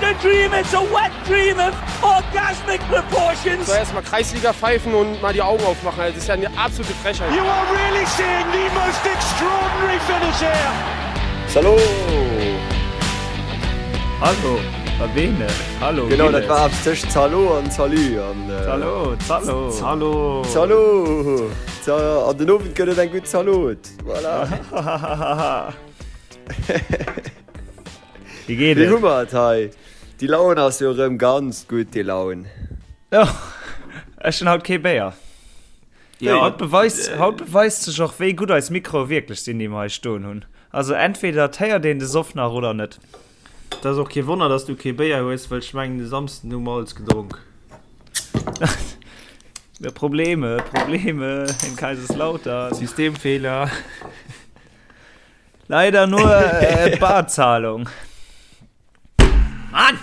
a dream, it's a wet dream of orgasmic proportions. So erstmal Kreisliga pfeifen und mal die Augen aufmachen. Das ist ja eine absolute Frechheit. You are really seeing the most extraordinary finish here. Salut! Hallo, Sabine. Hallo. Genau, dat war eppes tëscht Zalo an Salut. An, äh, Zalo, Zalo. Zalo. Zalo. An den Owend gëtt et eng gutt Zalot. Voilà. Wéi geet Wéi et? hu mer et hei? Déi Laun ass jo erëm ganz gutt, déi Laun. Jo, ech hunn haut kee Béier. Ja, Haut beweist, haut beweist sech och, wéi gutt eis Mikroe wierklech sinn, déi mer hei stoen hunn. Also entweder et héiert een de Soff nach oder net. Et ass och kee Wonner, dass du kee Béier hues, well ech mengen de Samsden hu mer alles gedronk. Ja, Probleme, Probleme in Kaiserslautern. Systemfehler. Leider nur äh, Barzahlung. Mann!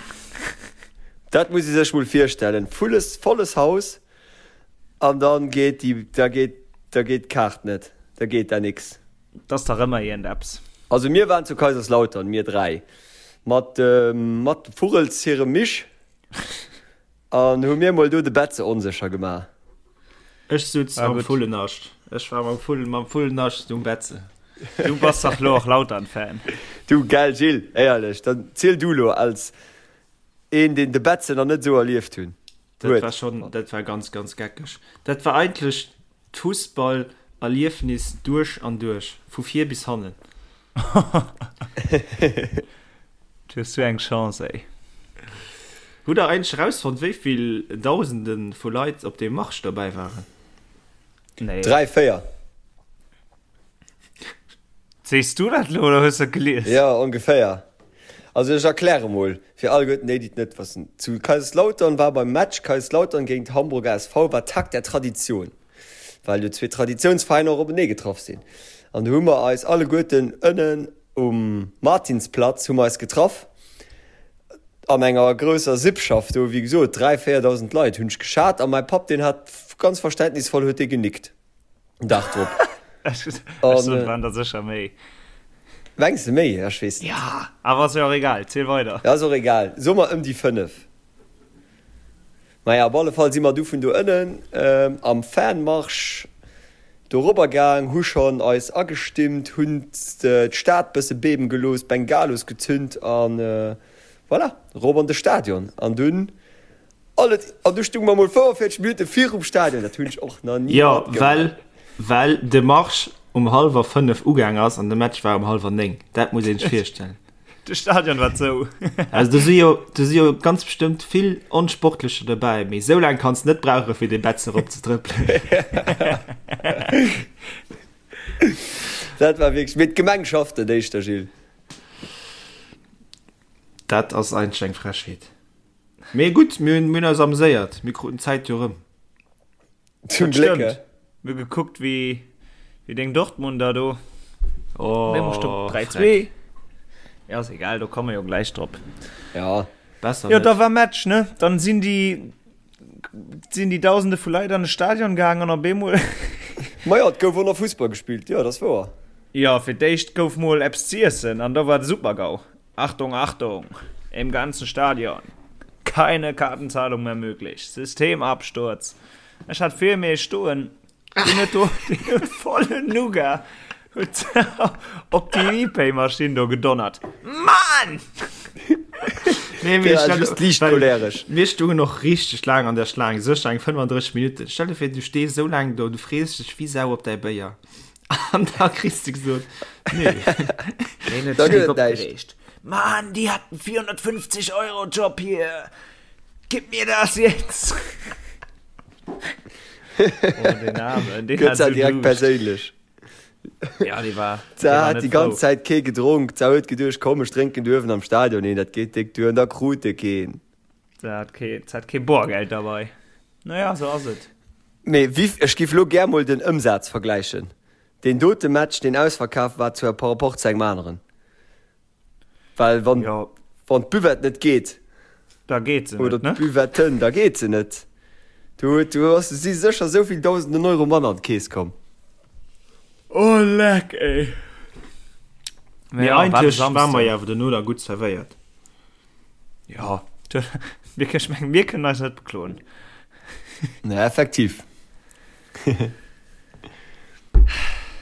Dat muss ee sech mol virstellen, vulles, volles Haus an dann geet déi, da geet, da geet d'Kaart net, da geet da nix. Dat ass dach ëmmer iergendeppes. Also mir waren zu Kaiserslautern, mir 3, mat dem, mat dem Vugels hirem Misch an hu mir mol do de Betze onsécher gemaach. Ech sutz Ah, am gutt. Vullennascht. Ech war mam Vull, mam Vullennascht um Betze. Du bass dach lo och Lautern-Fan. Du, gell Gilles, éierlech, dann ziel du lo als een deen de Betze nach net esou erlieft hunn Dat huet. war schon, dat war ganz, ganz geckeg. Dat war eigentlech D'Fussballerliefnis duerch an duerch, vu vir bis hannen. Du hues sou eng Chance, ey. Hutt der eigentlech erausfonnt, wéi vill Dausende vu Leit op deem Marsch dobäi waren? Nee. 3, 4. Sees du dat lo oder hues de et gelies? Jo, ongeféier. Also ech erkläre mol fir alleguerten déi, déi et net wëssen. Zu Kaiserslautern war beim Match Kaiserslautern géint Hamburger SV war Tag der Tradition, well jo zwee Traditiounsveräiner och openee getraff sinn. An do hu mer eis alleguerten ënnen um Martinsplatz hu mer eis getraff an enger grousser Sippschaft do, wéi gesot 3, 4.000 Leit hunn ech geschat a mäi Papp deen hat ganz verständnisvoll huet dee genickt. Dag drop. Ech soen, et waren der sécher méi. Mengs de méi? Ech weess net. Ja, awer ass jo och egal. Ziel weider. Ja, ass och egal. Soe mer ëm déi 5. Maja, op alle Fall si mer du vun do ënnen am Fanmarsch dorobber gaang, hu schonn eis agestimmt, hunn d'Stad bësse beben gelooss, Bengalos gezünt an voilà, rop an de Stadion. An dunn Alles, an du stung mer mol 45 Minuten virum Stadion, dat hunn ech och nach ni Jo, matgemaach. well, well de Marsch um hallwer 5 ugaang ass an de Match war um hallwer 9. Dat muss een sech virstellen. De Stadion war zou. Also do si jo, do si jo ganz bestëmmt vill Onsportlecher dobäi, mee esou laang kanns de net brauche fir dee Betz erop ze trëppelen. Dat war wierklech, mee d'Gemeng schafft net éischter, Gilles. Dat ass eigentlech eng Frechheet. Mee gutt, mir hunn eis ameséiert, mir kruten d'Zäit jo rëm. Zum Gléck, Stimmt. Mir hu gekuckt, wéi, wéi deng Dortmunder do. Oh, Mir musst op 3, 2. Freck. Ja, ass egal, do komme jo gläich drop. Ja. Besser Jo, net. da war Match, ne? Dann sinn déi, sinn déi Dausende vu Leit an de Stadion gaang an op eemol. Majo, et gouf och nach Fussball gespillt, jo, dat ass wouer. Jo, fir d'éischt gouf mol eppes z'iessen an da war de Super-GAU. Achtung, Achtung! Im ganzen Stadion keine Kartenzahlung mehr möglich. Systemabsturz. Ech hat vir mir stoen, deen huet do, deen huet vollen Nougat huet op déi ePay-Maschinn do gedonnert. Mann! Nee, mee Der stell just liicht well choleresch. Mir stungen och richteg laang an der Schlaang, sécher eng 35 Minutten. Stell dir vir, du stees esou laang do, du frees dech wéi Sau op däi Béier. An da kriss de gesot, nee. Deen huet Da sech gëtt et näischt. opgereegt. Mann, die hat einen 450 Euro Job hier. Gib mir das jetzt. Oh, den Armen, den Gëtt hat se so direkt Duuscht. perséinlech. Ja, die war, Se die war hat net déi ganz frou. Zäit kee gedronk. Se huet geduecht, komm, ech drénken duerwen am Stadion een, dat geet déck duer. An da krut e keen. Se hat kee, se hat kee Boergeld derbei. Naja, sou ass et. Mee wéi, ech giff lo gär mol den Ëmsaz vergläichen, deen dote Match deen ausverkaf war zu par rapport zu engem aneren, well wann Jo. wann d'Buvette net geet, Da geet se oder net, ne? d'Buvetten, da geet se net. Do huet, do ass, si sécher esou vill dausenden Euro manner an d'Keess komm. Oh leck, ey. Mee Ja, war de eigentlech ware mer Samsden. jo awer dono da gutt zerwéiert. Jo, mir, ech mengen, mir kënnen eis net bekloen. Nee, effektiv.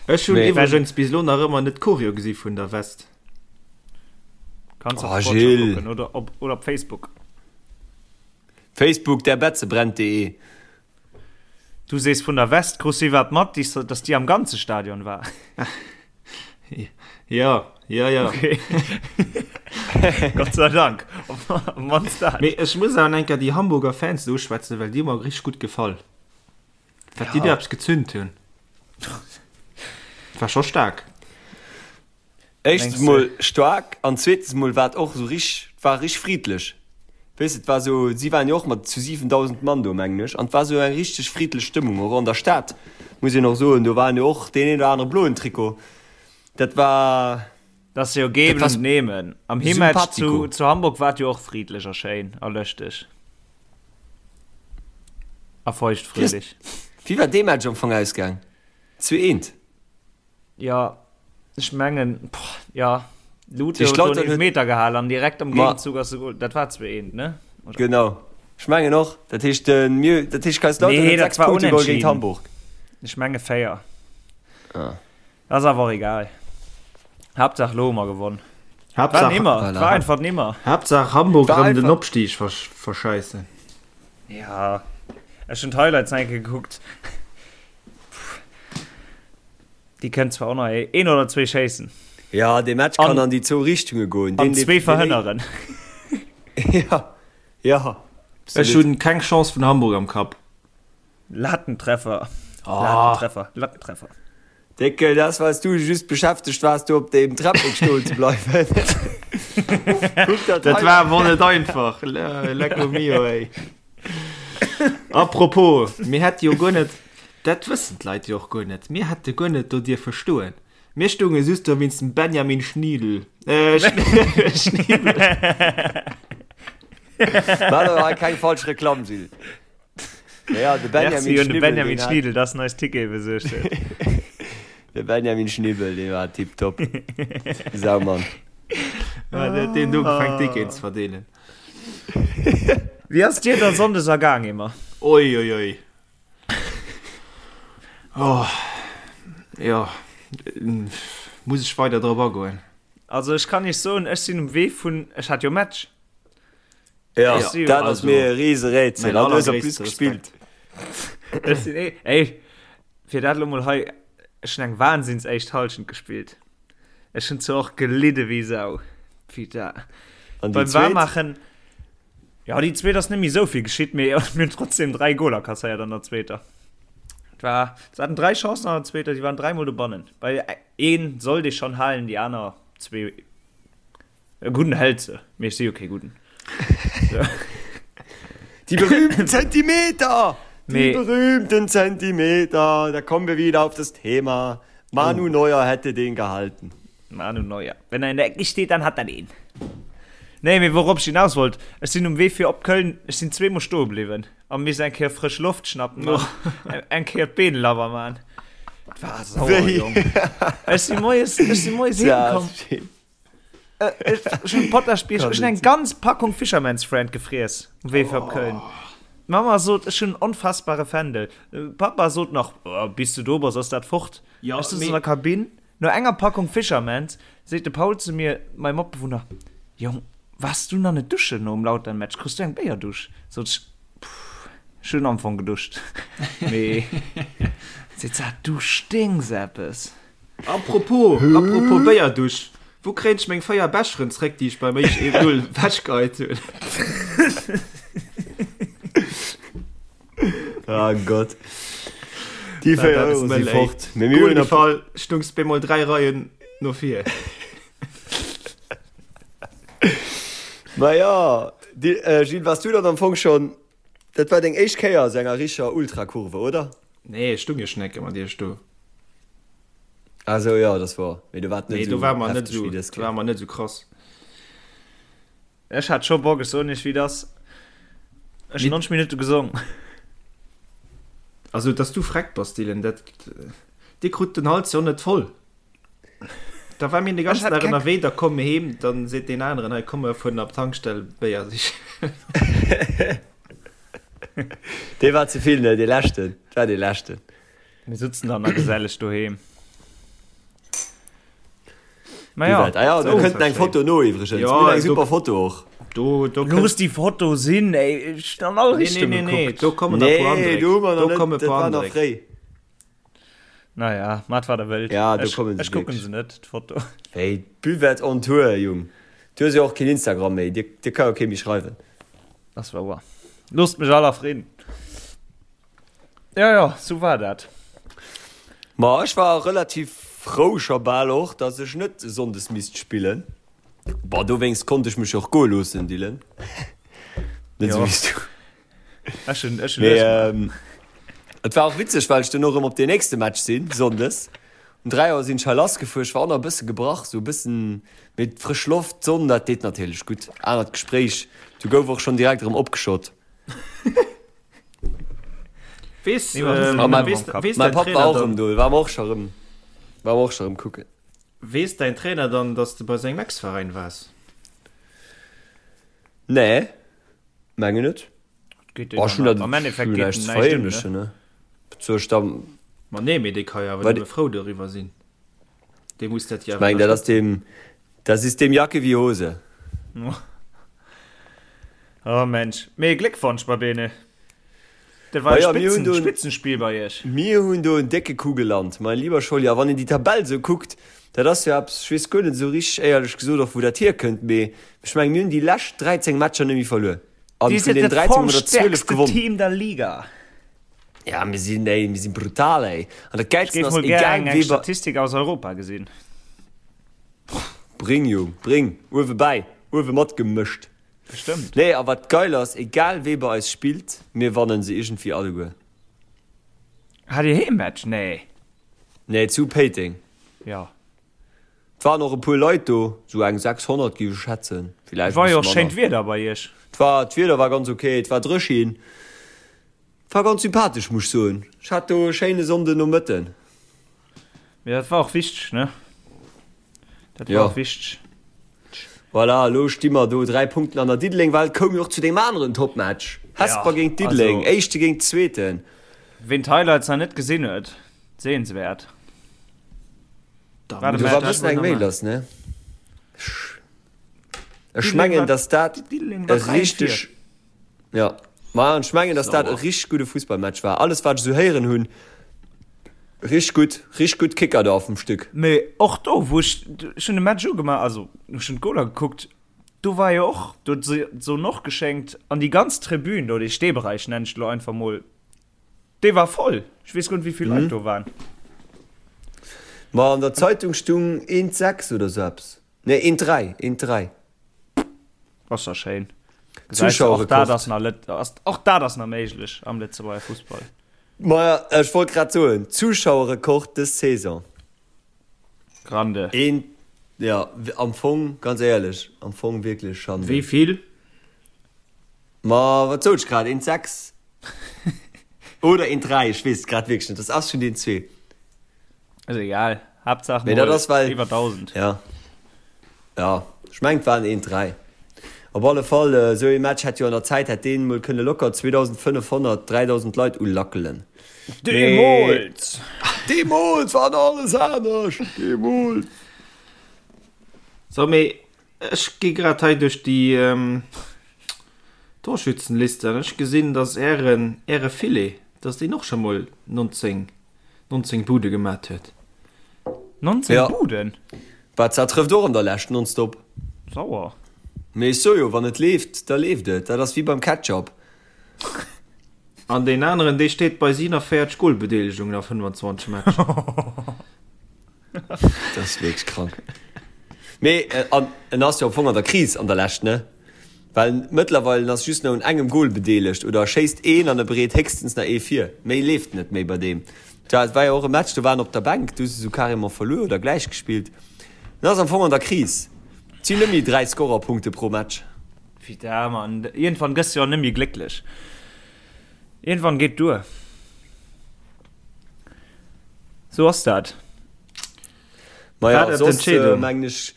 Ech hunn iwwregens bis elo nach ëmmer net d'Choreo gesi vun der West. Kanns op Sportschau kucken oder op, oder op Facebook. Facebook, der Betze brennt.de. Du sees vun der West, krus si wat mat, dass déi am ganze Stadion war? Jo, jo, jo. Okay. Gott sei Dank. Op mannst dat. Mee ech muss awer eng Kéier déi Hamburger Fans do uschwätzen, well déi hu mer richteg gutt gefall. Wat déi do eppes gezünt hunn, war scho staark. Éischtens mol staark an zweetens mol war et och esou rich, et war rich friddlech. Weess de, et war esou, si waren jo och mat zu 7.000 Mann do, mengen ech, an et war esou eng richteg friddlech Stëmmung och an der Stad, muss een och soen. Do waren jo och deen een oder anere bloen Trikot. Dat war. Dat ass jo geben und nehmen. Am Heemmatch zu, zu Hamburg war et jo och friddlech a schéin a lëschteg a feuchtfröhlich. Wéi war dee Match am Fong ausgaang? Zu eent? Jo, ech mengen, jo, Lute huet do en Eelfmeter gehal an direkt am Géigenzug ass de Goal. Dat war 2, 1, ne? Oder? Genau, ech mengen och. Dat heescht, mir, dat heescht Kaiserslautern huet 6 Punkte geholl géint Hamburg. Ech menge 4. Ah. Ass awer och egal. Haaptsaach lo hu mer gewonn. Haaptsaach, war nimmer, voilà. War einfach nimmer. Haaptsaach Hamburg rëm den Opstieg verscheissen. Ja, ech hunn d'Highlights nach eng Kéier gekuckt. Déi kënnt zwar och nach een oder zwee schéissen. Ja, dee Match kann an déi zwou Richtunge goen. An zwee verhënneren. Ja, ja. Ech hunn keng Chance vun Hamburg am Kapp. Lattentreffer. Lattentreffer. Lattentreffer. Déckel, dat ass well s du just beschäftegt waars do op deem Treppek stoen ze bleiwen. Kuck dat Dat war awer net einfach. Lecco mio, ey. Apropos, mir hätte jo guer net, dat wëssen d'Leit jo och guer net, mir hätte guer net do dierfe stoen. Mir stounge just do wéinst dem Benjamin Schniedel. Äh, Schniebel. Maach elo hei keng falsch Reklamm, Gilles. Ja, de Benjamin Merci un de Schnibbel, Benjamin deen hat- Schniedel, dass en eis Tickete besuergt huet. De Benjamin Schnibbel, dee war tipptopp. Saumann. Ja, deen huet deen ugefaangen, Ticketen ze verdeelen. Wéi ass dir da Sonndes ergaang, Emer? Oi, oi, oi. Oh, jo, muss ech weider drop agoen? Also ech kann iech soen, ech sinn um Wee vun, ech hat jo Match. Ja, dat ass mir e riese Rätsel. An du hues en plus gespillt. Ech sinn eh, ey, fir dat elo mol hei, ech hunn eng wahnsinns éischt Hallschent gespillt. Ech hunn zwar och gelidde wéi Sau. Putain. An déi Beim zweet? Waarmaachen, ja, déi zweet ass net méi esou vill geschitt, mee mir hunn trotzdem 3 Goler kasséiert an der zweeter. Et war, se haten 3 Chancen an der zweeter, déi waren dräimol dobannen. Bei een sollt ee schonn halen, déi aner zwee, e gudden hält se, mee ech si jo kee gudden. Die berühmten Zentimeter! Die Mee- berühmten Zentimeter! Da kommen wir wieder auf das Thema. Manu Neuer hätte den gehalten. Manu Neuer. Wenn er in der Ecke steht, dann hat er den. Nee, mee wourop ech hinaus wollt, ech sinn um Wee fir op Köln, ech sinn zweemol stoe bliwwen a miss eng Kéier frësch Loft schnappen an eng Kéier d'Been labber man. Et war sauer, Jong. Ech si moies, ech si moies heem komm. Ech hunn Potaschbierg, ech hunn eng ganz Packung Fisherman's Friend gefriess um Wee fir op Köln. D'Mamma sot, ech hunn en onfassbare Fändel. Papa sot nach, oh, bis du do bass, ass dat fort. Ja, Ech sëtz mee- an der Kabinn, no enger Packung Fisherman's seet de Paul zu mir, mäi Matbewunner, Jong, waars du nach net duschen nom Lautern-Match? Kriss du eng Béierdusch? Sot ech, Pff, ech hunn am Fong geduscht. Mee seet se, du sténks eppes. Apropos, apropos Béierdusch, wou kréien ech meng 4 Becheren zréck, déi ech beim éischt 1-0 wechgeheit hunn? Ah Gott. Déi 4 Euro si fort. Mee mir hunn Fall stungs bemol 3 Reien no vir. Ma ja, Gilles, wars du dann am Fong schon, dat war deng éischt Kéier a sou enger richer Ultrakurve, oder? Nee, ech stung jo schon eng Kéier mat iech do. Ah sou, jo, dat war, mee do war et net Nee, do sou war mer net hefteg sou, wéi dës do war Kéier. mer net sou krass. Ech hat scho Bock, ech soen iech wéi et ass. Ech hunn 90 Minutte gesong. Also dass du freck bass Dylan, dat dir krut den Hals jo net voll. Da war mir de ganzen Dag ënnerwee, da komme mir heem, dann seet deen aneren, hei komm mir fueren op d'Tankstell Béier sichen. Dee war ze vill, ne? Dee leschten, dat war dee leschten. Mir sutzen dann a geselleg doheem. Ma ja, ah ja, do kënnt eng Foto no iwwregens. Ja, eng super Foto och. Do, do Looss déi Foto sinn, ey, ech hunn an all Richtung nee, nee, nee, gekuckt. do kommen nach puer Nee, Andréck. do hu mer Do nach komme net, dat puer war nach Andréck. fréi. Naja, mat wat der wëllt. Ja, do Ech, kommen se ech kucken wierklech. se net, d'Foto. Wéi, d'Buvette on Tour, Jung. Du hues jo och keen Instagram méi, dir, dir ka jo kee méi schreiwen. Ass wouer. Loosst mech all a Fridden. Ja, ja, sou war dat. Ma ech war relativ frou scho bal och, dass ech net sonndes misst spillen. Bon, dowéinst konnt ech mech och goe loossen, Dylan. Net sou Jo. wéi s du. Ech hunn, ech hunn Mee lues gemaach. ähm, et war och witzeg, well ech duerno erëm op deen nächste Match sinn, sonndes. Um 3 Auer sinn ech hei lassgefuer. Ech war och nach e bësse gebrach, sou e bëssen, mee d'frësch Loft, d'Sonn, dat deet natierlech gutt. Anert Gespréich, du gouf och schonn direkt erëm opgeschott. Weess, Nee, ma ähm, Ah, mein, weess, weess mein dein Papp Trainer war och dann, erëm do, war mer och scho erëm, war mer och scho erëm kucken. weess däin Trainer dann, dass de bei sengem Ex-Veräin waars? Nee, mengen net. Geet deen Oh, ech dann hunn dat am Endeffekt ech hunn geet näischt den ze näischt un, ne? verheemlechen, ne? Wat soll ech da, Ma nee, mee dee ka jo awer wat, nëmme frou doriwwer sinn. Dee muss dat jo ech awer mengen, dat ass ënnerstëtzen. deem, das ist dem Jacke wie Hose. Oh Mensch, mee Gléckwonsch Babene. Dat war Ma e jo, mir hunn Spitzen, do en, Spitzenspiel bei iech. mir hunn do en décke Coup gelant, mein lieber Scholli. A wann een déi Tabell esou kuckt, dat ass jo eppes, ech weess guer net esou richteg éierlech gesot och wou dat hierkënnt, mee ech mengen, mir hunn déi lescht 13 Matcher net méi verluer. An Dir vun sidd den dat 13 hu mer der 12 formstärkste gewonnen. Team der Liga. Ja, mir sinn, ey, mir sinn brutal, ey. An dat Ech Gäilsten géif ass, mol gär egal eng, eng wee bei, Statistik aus Europa gesinn. Bring, Jung, bring, uewe bäi, uewe matgemëscht. Bestëmmt. Nee, a wat geil ass, egal wee bei eis spillt, mir wannen se iergendwéi alleguer. Hat dir Heemmatch? Nee. Nee, zu Péiteng. Jo. Et waren och e puer Leit do, sou eng 600 géif ech schätzen, villäicht e War jo bësse och schéint manner. Wieder bei iech. Et war, d'Wieder war ganz ok, et war dréchin, et war ganz sympathesch, muss ech soen. Ech hat do e schéine Sonndenomëtten. Mee dat war och wichteg, ne? Dat war Jo. och wichteg. Voilà, elo sti mer do 3 Punkten an der Diddeleng, well et koum jo och zu deem aneren Topmatch, Hesper Ja, géint Diddeleng, also Éischte géint Zweeten. ween d'Highlights nach net gesinn huet, sehenswäert. Da War de Do muss war ech e dat bëssen mol eng nach Méi maachen. lass, ne? Ech Diddeleng mengen, war, dass dat Diddeleng e war 3 richteg, vir. ja, ma an ech mengen, dass dat e Sauer. richteg gudde Fussballmatch war. Alles wat ech esou héieren hunn, richteg gutt, richteg gutt Kicker do auf dem Stück. Mee och do, wou ech, ech hunn de Match ugemaach, also ech hunn d'Goler gekuckt, do war jo och, do huet se d'Sonn och geschéngt an déi ganz Tribün do, dee Steeberäich nennen ech et elo einfach mol, dee war voll. Ech weess guer net, wéi vill Leit do waren. Ma an der Zeitung stung eent 6 oder sou eppes. Nee, eent 3, eent 3. Ass ja schéin. Gesäis du, och dat Zuschauerrekord. ass nach Lët-, ass, och dat ass nach méiglech am Lëtzebuerger Fussball. Maja, ech wollt grad soen, Zuschauerrekord dës Saison. Grande. Een, ja, am Fong, ganz éierlech, am Fong wierklech Schande. Wéi vill? Ma wat sot ech grad? Eent 6 oder eent 3, ech weess et grad wierklech net. Das ass vun den zwee. Ass egal. Haaptsaach Mee dat mol ass well, iwwer 1000. ja, ja, ech mengen et waren eent 3. Op alle Fall, esou ee Match hätt jo an der Zäit hätt deen mol kënne locker 2500, 3000 Leit ulackelen. Mee Deemools! Deemools war nach alles anescht! Deemools! So, mee ech gi grad hei duerch déi Torschützenliste an ech gesinn, dass ären, äre Filet, dass deen och scho mol 19 19 Bude gemat huet. 19 Ja. Buden? Barca trëfft och an der Lescht nonstop. Sauer. Mee ech soe jo, wann et leeft, da leeft et. Dat ass wéi beim Ketchup. An deen aneren, dee steet bei 47 Golbedeelegungen a 25 Matcher. Dat ass wierklech krank. Mee an en ass jo am Fong an der Kris an der Lescht, ne? Well mëttlerweil en ass just nach un engem Gol bedeelegt oder e schéisst een an e bereet héchstens nach ee vir. Méi leeft net méi bei deem. Tja, et war jo och e Match, do war en op der Bänk, do hu se sou carrément verluer oder gläich gespillt. En ass am Fong an der Kris. Et sinn net méi 3 Scorerpunkte pro Match. Putain, Mann, iergendwann gëss de jo net méi glécklech. Iergendwann geet duer. Sou ass dat. Maja, War dat soss d'Entscheedung? mengen ech,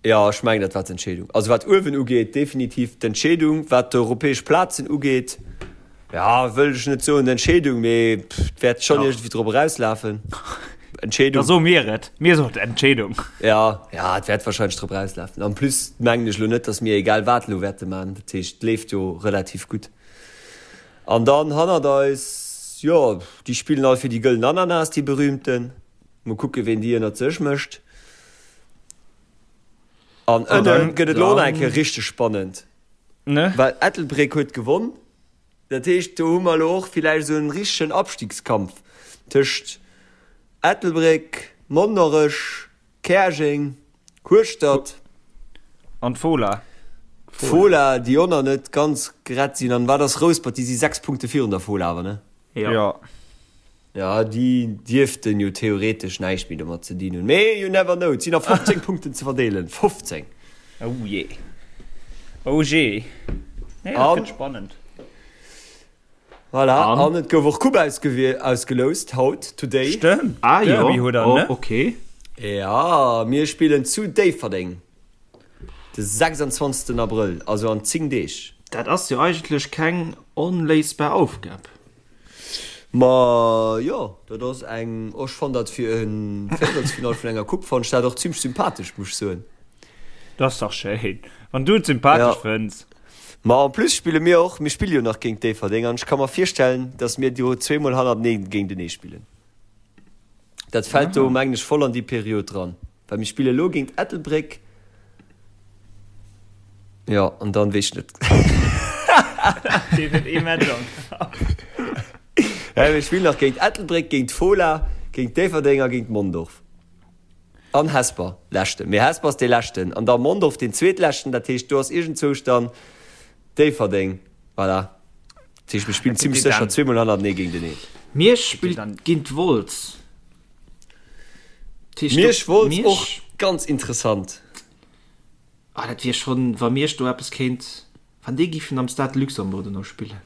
jo, ech mengen dat war d'Entscheedung. Also wat uewen ugeet, definitiv d'Entscheedung. Wat d'europäesch Plazen ugeet, ja, wëll ech net soen d'Entscheedung, mee et wäert schonn iergendwéi drop erauslafen. Entscheedung. Da soe mir et. Mir soen d'Entscheedung. Ja, ja, et wäert wahrscheinlech drop erauslafen. En plus mengen ech elo net, datt mir egal wat elo wäerte man. Dat heescht, et leeft jo relativ gutt. An dann hannert eis, jo, déi spillen all fir déi gëllen Ananas, déi berühmten. Mol kucke ween déi ënnert sech mécht. An ënne gëtt et elo och nach eng Kéier richteg spannend, well Ettelbréck huet gewonn. Dat heescht, do hu mer elo och villäicht esou en richtegen Abstiegskampf tëscht Ettelbréck, Monnerech, Käerjeng, Hueschtert. An d'Fola. D'Fola, déi och nach net ganz gerett sinn. An wat ass Rouspert? Déi si 6 Punkte virun der Fola awer, ne? Jo. Jo, déi dierften jo theoretesch näischt méi domat ze dinn hunn. Mee you never know, et sinn nach 15 Punkten ze verdeelen. 15! Oh jee. Oh jee. Nee, dat gëtt spannend. Voilà, an et gouf och Coupe ausgeloust haut, today. Stëmmt, ah, jo. Derby huet der, oh, ne? Okay. Ja, mir spillen zu Déifferdeng de 26. Abrëll, also an 10 Deeg. Dat ass jo eigentlech keng onléisbar Aufgab. Ma jo, dat ass eng, ech fann dat fir e Véierelsfinall vun enger Coupe fann ech dat och zimlech sympathesch, muss ech soen. Dat ass dach schéin, wann du et sympathesch fënns. Ma en plus spille mir och, mir spille jo nach géint Déifferdeng an ech ka mer virstellen, datt mir do zweemol hannertenee géintenee spillen. Dat fält do mengen ech voll an déi Period dran, well mir spille lo géint Ettelbréck, jo, an dann weess ech net. Deen huet ee Match am Kapp. Ja, mir spillen nach géint Ettelbréck, géint d'Fola, géint Déifferdeng a géint Mondorf. An Hesper, leschten. Mee Hesper ass dee leschten an da Mondorf deen zweetleschten, dat heescht do ass iergendzwousch dann Déifferdeng, voilà. Dat heescht mir spillen zimmlech sécher zweemol hannertenee géinteneen. Miersch spillt géint Wolz. Miersch, Wolz och ganz interessant. Ah dat wier schonn, wa Miersch do eppes kéint, wann déi giffen am Stade Luxembourg dono spillen.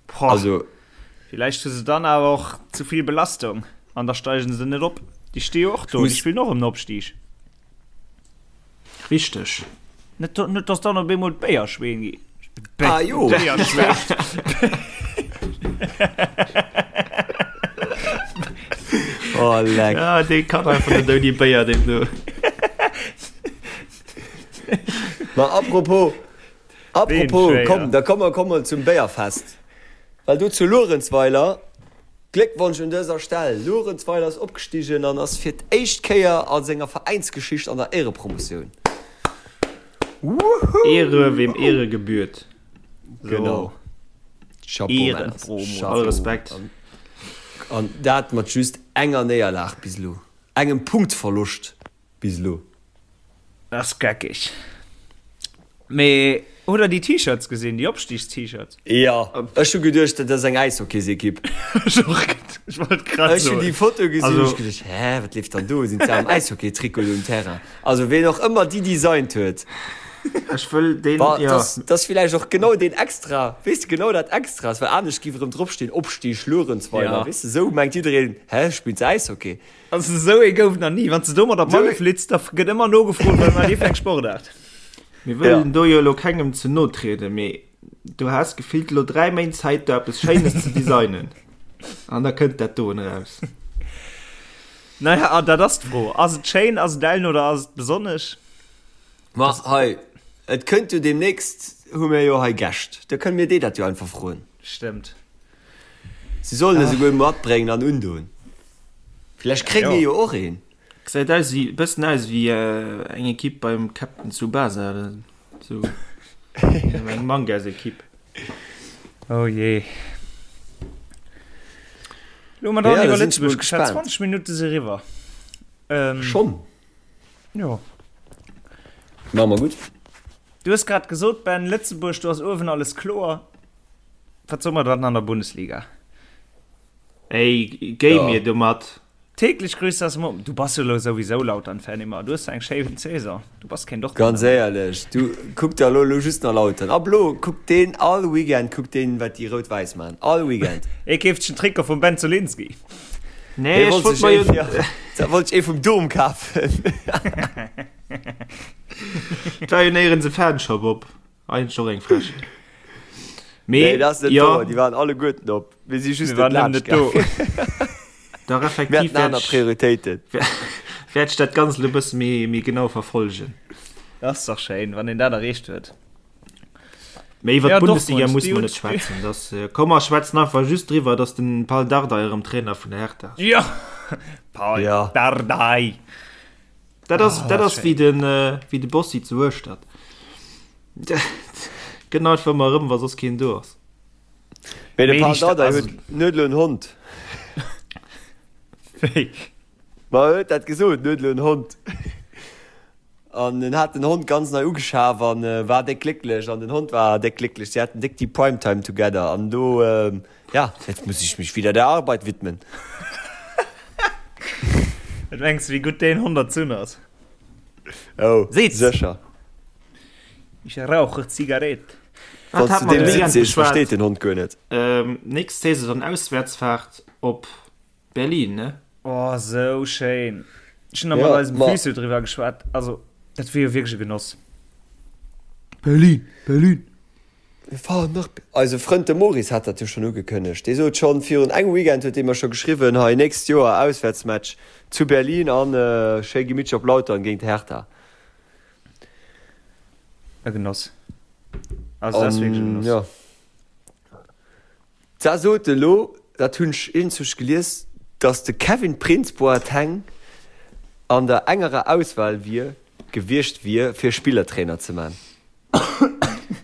Boah, also villäicht hu se dann awer och zu vill Belastung an da steigen se net op. Déi sti jo och do, déi spillen och ëm den Opstig. Richteg. Net, net dass dann op eemol d'Béierschween gi. Ah jo. Béierschween. Oh leck. Ja, dee kann einfach net ouni Béier, deen do. Ma apropos, Apropos, komm, da komme mer komme zum Béierfest. Well do zu Luerenzweiler, Gléckwonsch un dëser Stell, Luerenzweiler ass opgestigen an ass fir d'éischt Kéier a senger Veräinsgeschicht an der Éierepromotioun. Wouhou! Ehre wem Ehre gebührt. Genau. Chapeau, Männer. Chapeau. All Respekt. An dat mat just enger Néierlag bis elo, engem Punktverloscht. Bis elo. Ass geckeg. Mee hutt der déi T-Shirts gesinn, déi Opstigs-T-Shirts? Jo, ech hu geduecht, dat ass eng Äishockeysekipp. Ech och, ech wollt grad Ech hun soen. déi Foto gesinn, Also. hu ech geduecht, hä, wat leeft dann do? Sinn se am Äishockey-Trikot do um Terrain? Also ween och ëmmer déi designt huet. Ech wëll deen, Wa, jo. dass, dass villäicht och genau deen extra, weess de, genau dat extra ass, well anescht giff erëm dropstinn, Opstig Luerenzweiler, Ja. weess de, sou mengt jiddereen, hä, spillt se Äishockey? Also esou ee gouf nach ni. Wann s de domat op d'Malle flitz, da gëtt ëmmer nogefrot, wat war déi fir eng Sportaart. Mir wëllen do jo elo kengem ze no trieden, mee du has gefillt elo 3 Méint Zäit do eppes Schéines ze designen an da kënnt dat doen eraus. Naja, an dat ass d'Fro. Ass et schéin, ass et ellen oder ass et besonnesch? Ma hei, et kënnt jo deemnächst, hu mir jo hei Gäscht, da kënne mir déi dat jo einfach froen. Stëmmt. Si sollen e souguer matbréngen an undoen. Vläicht kréie mir jo och een. Gesäit aus wéi, bëssen aus wéi eng Equipe beim Captain Tsubasa oder sou. Eng Mangas-Equipe. Oh jee. Lo hu mer dann Ja, da iwwer sinn ech mol Lëtzebuerg geschwat. gespaant. 20 Minutte si riwwer. Ähm, Schonn? Jo. Maache mer gutt. Du hues grad gesot, Ben, Lëtzebuerg, do ass uewen alles kloer. Wat soe mer dann an der Bundesliga? Ey, géi mir domat. Täglich grüßt das Murmeltier. Du bass jo elo souwisou Lautern-Fan immer. Du hues eng schéi Saison. Du bass keen Dortmunder Ganz méi. éierlech, du kuck der elo elo just nach Lautern. Ab elo kuckt deen all Weekend kuckt deen wat déi Rout-Wäiss man. All Weekend. Ee keeft sech en Trikot vum Ben Zolinski. Nee, ech wollt mer jo. Da wollt ech ee vum Dom kafen. Et war jo néierens e Fanshop op. Eigentlech och eng Frechheet. Mee, nee, dat ass net jo. wouer, déi waren alleguerten op. Mir si just net laanscht do. Dach, effektiv. Mir haten aner Prioritéiten. Wäert ech dat Ganzt elo e bësse méi, méi genau verfollegen. Dat ass dach schéin, wann een dat erreecht huet. Mee iwwer d'Bundesliga muss mer net schwätzen. Das, äh, komm mer schwätzen einfach just driwwer, dass den Pal Dardai erëm Trainer vun der Hertha ass. Ja! Pal ja. Dardai! Dat ass, oh, dat ass wéi den, äh, wéi de Bossi zu Hueschtert. Gëtt einfach ëmmer erëm, wa soss keen do ass. Mee de Pal Dardai huet net elo en Hond. Wéi? Ma e huet dat gesot, en huet elo en Hond. An en hat den Hond ganz nei ugeschaf an war déck glécklech an den Hond war déck glécklech. Si haten déck déi Prime Time together an do, ja, jetzt muss ich mich wieder der Arbeit widmen. Wat mengs de, wéi gutt deen Hond erzunn ass? Oh, Seet sécher. Ich rauche Zigarette. Wann s du deem Sitz sees, versteet den Hond guer net. Nächst Saison dann Auswäertsfahrt op Berlin, ne? Oh, sou schéin. Ech hunn nach mat eisem Physio driwwer geschwat. Also, dat wier jo wierklech e Genoss. Berlin, Berlin. Mir fahren nach. Eise Frënd de Maurice hat dat jo schonn ugekënnegt. Dee sot schonn virun engem Weekend huet dee mer scho geschriwwen, hei nächst Joer Auswäertsmatch zu Berlin an schéi gemittlech op Lautern géint Hertha. E Genoss. Also, dat ass wierklech e Genoss. Jo. D'Sa sot elo, dat hunn ech iergendwousch gelies, datt de Kevin Prince Boateng an der engerer Auswahl wier gewiescht wier fir Spillertrainer ze man.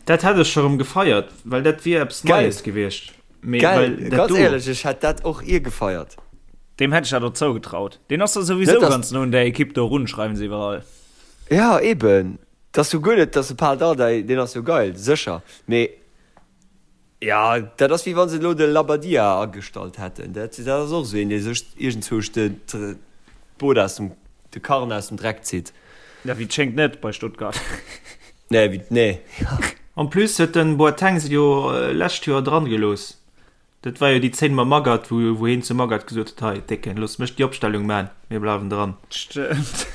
Dat hätt ech scho rëm gefeiert, well dat wier eppes Neies gewiescht. Mee well dat Ganz éierlech, ech hätt dat och ier gefeiert. Deem hätt ech dat och zougetraut. Deen ass da souwisou ganz no un där Ekipp do erun, schreiwen se iwwerall. Jo, eben. 't ass jo guer net, datt de Pal Dardai, deen ass jo geil, sécher, mee Jo, dat ass wéi wann se elo de Labbadia agestallt hätten. Dat ass och esou een, dee sech iergendzwousch d'Boot aus dem, de Karren aus dem Dreck zitt. Ja, wéi et schéngt net bei Stuttgart. Nee, wéi, nee. En plus huet den Boateng se jo lescht Joer dran gelooss. Dat war jo déi Zéin mam Magath, wou wou heen zum Magath gesot huet, hei Décken, looss mech déi Opstellung maan, mir bleiwen dran. Stëmmt.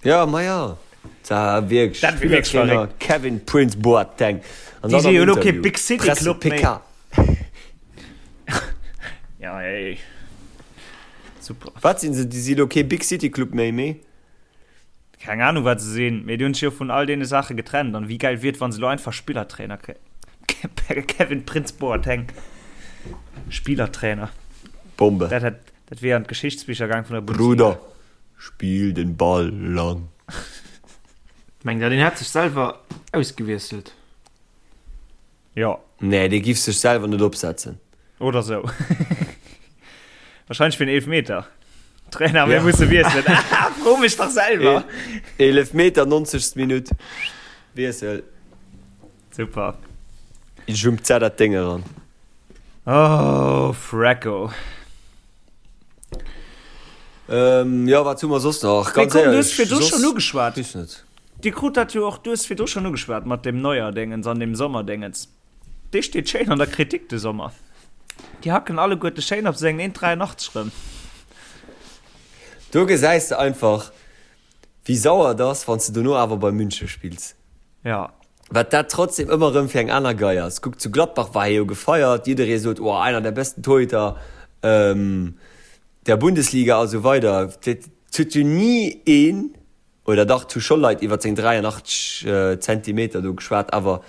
Ja, ma ja. Dat war wierklech Dat wier wierklech Spillertrainer verréckt. Kevin Prince Boateng. An Déi dann si am jo elo kee Interview, Big City Presse Club méi. PK. Ja, ey. Super. Wat sinn se? Déi si elo kee Big City Club méi, mee? Keng Ahnung wat se sinn, mee déi hunn sech jo vun all deene Saache getrennt. An wéi gäil wier et wann se elo einfach Spillertrainer kréien. Kevin Prince Boateng Spielertrainer. Bombe. Dat hätt, dat wier an d'Geschichtsbicher gaang vun der Bundesliga. Bruder, spill den Ball lang. Mengt der deen hätt sech selwer ausgewiesselt? Jo. Nee, dee giff sech selwer net opsetzen. Oder sou. Wahrscheinlech fir en Eelefmeter. Trainer, mir musse wiesselen. Ah, fro mech dach selwer. Eelefmeter, 90. Minutt. Wiessel. Super. Jumpt se dat Déng eran. Oh, Frecko. Ähm, jo, wat hu mer soss nach? Mee Ganz komm, du éierlech, hues virdru soss schonn ugeschwat. weess net. Dir krut dat jo och, du hues virdru schonn ugeschwat mat deem Neuer-Déngens an deem Sommer-Déngens. Dee steet schéin an der Kritik de Sommer. Déi hacken alleguerte schéin op sengen 1,83 rëm. Do gesäis de einfach, wéi sauer et ass, wann s de dono awer bei München spills. Ja. Wat dat trotzdem ëmmer erëm fir eng aner Gei ass. Kuck, zu Gladbach war hie jo gefeiert, jidderee sot, oh, einer der besten Torhüter der Bundesliga a sou weider. Et huet jo ni een, oder dach, et hu scho Leit iwwer seng 83 Zentimeter do geschwat, awer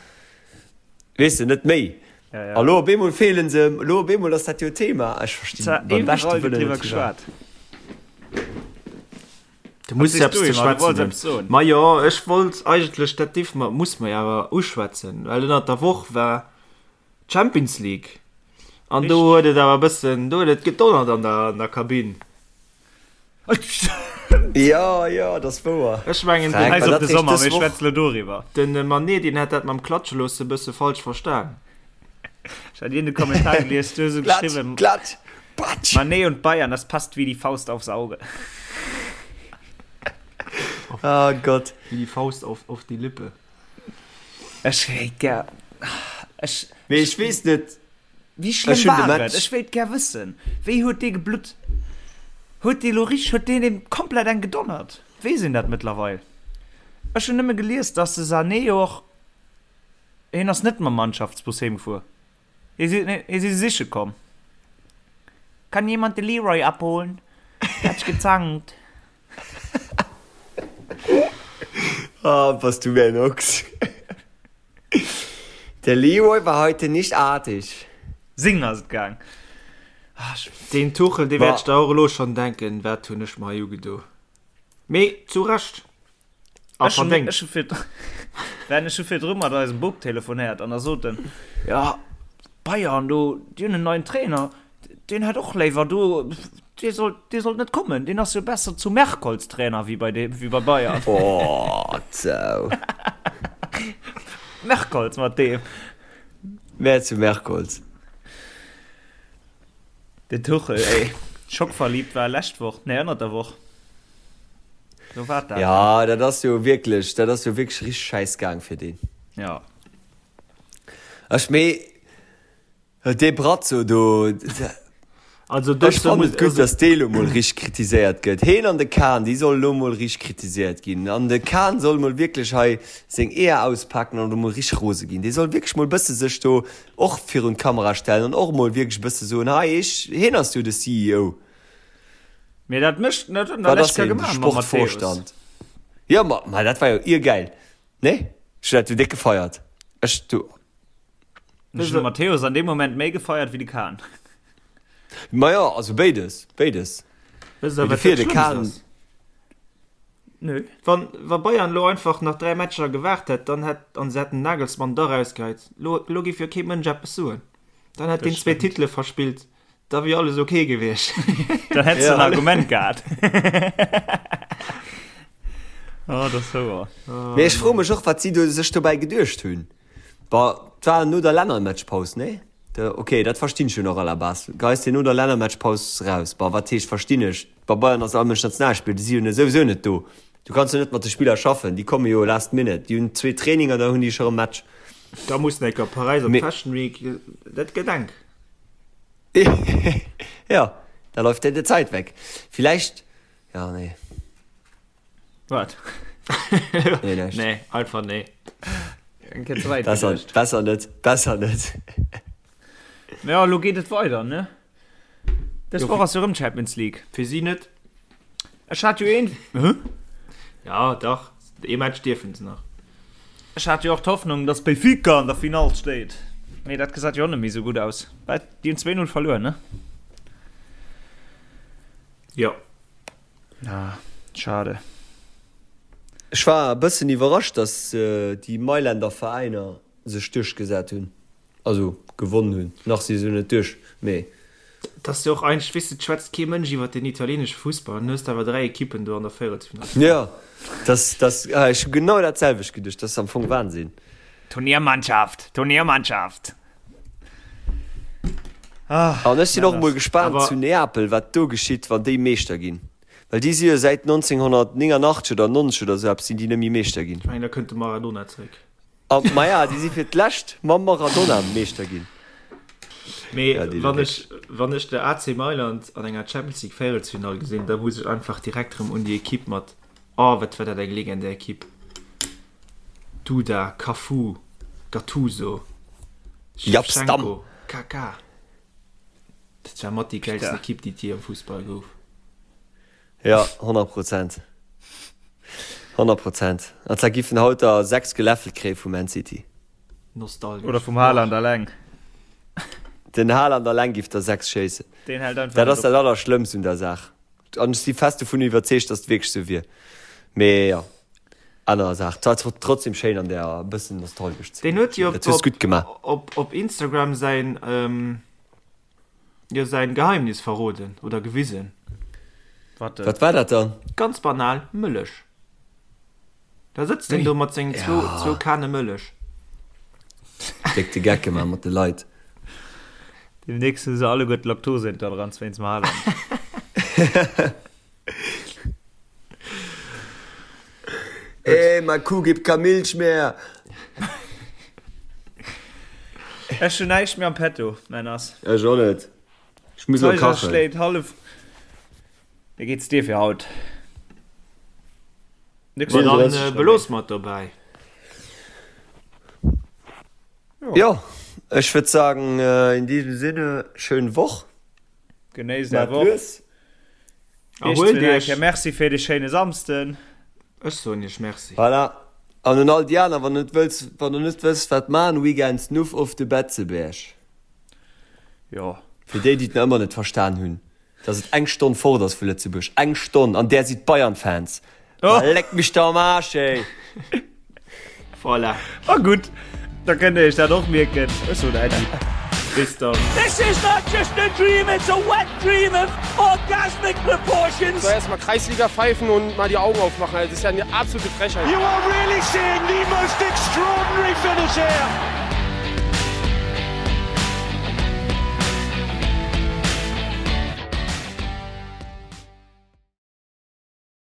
weess de, net méi. Ja, ja. A lo op eemol feelen se em, lo op eemol ass dat jo Thema. Ech verstinn Zwar beim beschte iwwerall gëtt Wëllen driwwer net firwat. geschwat. Du muss Was sees eppes du, ze Emma? Du wollts schwätzen hunn. eppes soen. Majo, ech wollt eigentlech, dat dierfe mer, muss mer jo awer uschwätzen, well ënnert der Woch war d'Champions League an do Richtig. huet et awer e bëssen, do huet et gedonnert an der, an der Kabinn. Jo, jo, dat ass wouer. Ech mengen, den, Fränk, Scheiss war op dat de réischt Sommer, dës mir Woch? schwätze lo doriwwer. den Mané, deen hätt dat mam Klatsche loosse e bësse falsch verstan. Ech hat iergend e Kommentar gelies, du hues esou Klatsch, geschriwwen, klatsch, patsch! Mané und Bayern, das passt wie die Faust aufs Auge. Oh Gott. Wie die Faust auf, auf die Lippe. Ech wéilt gär, ech, Mee ech weess net, wéi ech schlëmm hunn de war et? Match. Ech wéilt gär wëssen, wéi huet dee geblutt? Huet dee lo richteg, huet deen deem komplett eng gedonnert? Weess een dat mëttlerweil? Ech hunn nëmme gelies, dass de Sané jo och, hien ass net mam Mannschaftsbus heem gefuer, hie si, hie si siche komm. Kann jemand de Leroy abholen? Der hat sich gezankt. Ah, bass du mir en Ochs. Der Leroy war heute nicht artig. Sing ass et gaang. Deen Tuchel, dee wäert sech da och elo schonn denken, wat hunn ech mer hei ugedo. Mee zu Recht a verdéngt. Ech hu fir, Ben, ech hu virdru mat eisem Bub telefonéiert an da sot en, jo, Bayern do, déi hunn en neien Trainer, deen hätt och léiwer do, dee sollt, dee sollt net kommen, deen ass jo besser zu Merkholz Trainer wéi bei deem, wéi bei Bayern. Oh, zou. Merkholz mat deem. Mä zu Merkholz. Den Tuchel, ey. Schockverliebt war lescht Woch, nee, ënnert der Woch. Do war dat. Ja, dat ass jo wierklech, dat ass jo wierklech richteg schäiss gaang fir deen. Ja. Ech mee dee Brazzo do, Also ech fannen et gutt, datt dee lo mol richteg kritiséiert gëtt. Heen an de Kahn, déi solle lo mol richteg kritiséiert ginn. An de Kahn soll mol wierklech hei seng Eeër auspaken an do mol richteg rose ginn. Dee soll wierklech mol bësse sech do och virun d'Kamera stellen an och mol wierklech e bësse soen, hei ech, heen ass jo de CEO. Mee dat mécht, dat huet en Wat der ass lescht Kéier heen, de gemaach mam Matthäus. Sportvorstand? Jo, ma, ma dat war jo iergäil, nee? Ech hunn dat jo déck gefeiert. Ech, du. Ech hunn de Matthäus an deem Moment méi gefeiert wéi de Kahn. Ma jo, also béides, béides. Wësst der, Mee wat dofir, dat de Schlëmmst Kahn. ass? Nö. Wann, wa Bayern elo einfach nach 3 Matcher gewaart hätt, dann hätt, an se hätten den Nagelsmann da rausgeheit, lo, lo géif jo kee Mënsch eppes soen. Dann hätt Dat deen zwee stëmmt. Titele verspillt, da wier alles ok gewiescht. Dann hätt's de en Ja. Argument gehat. Oh, dat ass wouer. Mee ech froe mech och, wat si do sech dobäi geduecht hunn. Bon, 't war no der Lännermatchpaus, nee? De, ok, dat verstinn ech jo nach à la base. Geis de no der Lännermatchpaus raus? Bon, wat heescht verstinn ech? Bei Bayern ass all Mënsch Nationalspiller, déi si jo net souwisou net do. Du kanns jo net mat de Spiller schaffen, déi komme jo last minute. Déi hunn zwee Traininger, da hunn déi scho rëm Match. Da muss en enker Paräis op Mee. d'Fashion Week, dat gëtt enk. Ja, da läuft dir die Zeit weg. Vielleicht, ja, nee. Wat? Nee, näischt. Nee, einfach nee. Eng Kéier ze wäit Besser, geduecht. besser net, besser net. Ja, elo geet et weider, ne? Dës Jo, Woch ass jo rëm Champions League. Fir si net. Ech hat jo een. Hä? Ja, dach, ee Match dierfen se nach. Ech hat jo och d'Hoffnung, dass Benfica an der Finall steet. Mee dat gesäit jo och net méi esou gutt aus. Well déi hunn 2-0 verluer, ne? Jo. Ah, schade. Ech war e bëssen iwwerrascht, dass déi Mailänder Veräiner sech duerchgesat hunn, also gewonnen hunn. Nach si se jo net duerch, mee. Et ass jo och eigentlech, weess de, et schwätzt kee Mënsch iwwert den italienesche Fussball an du hues awer 3 Ekippen do an der Véierelsfinall. Jo, dass, dass, ech hu genau dat selwecht geduecht, dat ass am Fong Wahnsinn. Turniermannschaft, Turniermannschaft. Ah, An ech sinn och emol gespaant Awer zu Neapel, wat do geschitt, wann déi Meeschter ginn. Well déi si jo säit 1989 oder 90 oder esou eppes sinn déi net méi Meeschter ginn. Ech mengen, da kënnt de Maradona zréck. A maja, déi si fir d'lescht mam Maradona Meeschter ginn. Mee Ja, déi wann Léck. ech, wann ech de AC Mailand an enger Champions League Véierelsfinall gesinn, da muss ech einfach direkt erëm un déi Ekipp mat, oh wat war dat eng legendär Ekipp, Duda, Cafu, Gattuso, Jaap Stam. Shevchenko, Kaka. Dat war mat déi gäilsten Putain. Ekipp déi et jee am Fussball gouf. Ja, 100 Prozent. 100 Prozent. An zwar giffen haut der 6 geläffelt kréie vu Man City. Nostalgesch. Oder vum Haaland alleng. Den Haaland alleng giff der 6 schéissen. Deen hält einfach Dat net ass op. dat Allerschlëmmst un der Saach. An ech si fest dovun iwwerzeegt, dass et wierklech sou wier. Mee jo, aner Saach. Et war trotzdem schéin an der e bëssen nostalgesch ze Deen ginn. huet jo Dat hues op, gutt gemaach. op, op Instagram säin, jo, säin Geheimnis verroden oder gewisen. Wat denn? Wat war dat dann? Ganz banal, Mëllech. Da sëtzt en do mat sengen zwou, zwou Kane Mëllech. Déck de Geck gemaach mat de Leit. Demnächst hu se alleguer d'Laktoseintoleranz wéinst dem Haaland. Ey, ma Kuh gibt kein Milch mehr! Ech hun näischt méi am Petto, Männers. Ech och net. Ech muss lo D'Zeiger kachen. schléit hallef. Wéi geht's dir fir haut? Nix Ma dann äh, belooss mer et dobäi. Jo, ech würd sagen, äh, in diesem Sinne, schön Woch. Genéisst är Woch. Erhuelt iech. Merci fir de schéine Samsden. Ech soen iech Merci. Voilà. An un all déi aner, wann der net wëlls, wann der net wësst wat man, Weekends Nuff of de Betzeberg. Jo. Fir déi, déi et nach ëmmer net verstan hunn. Dass et eng Stonn fort ass vu Lëtzebuerg. Eng Stonn, an där si d'Bayern-Fans. Ma leck mich doch am Arsch, ey! Voilà. Ma gutt, da kënnt der iech dat och mierken. Ech soen Äddi. Bis dann. This is not just a dream, it's a wet dream of orgasmic proportions. So, erstmal Kreisliga pfeifen und mal die Augen aufmachen. Das ist ja eine absolute Frechheit. You are really seeing the most extraordinary finish here.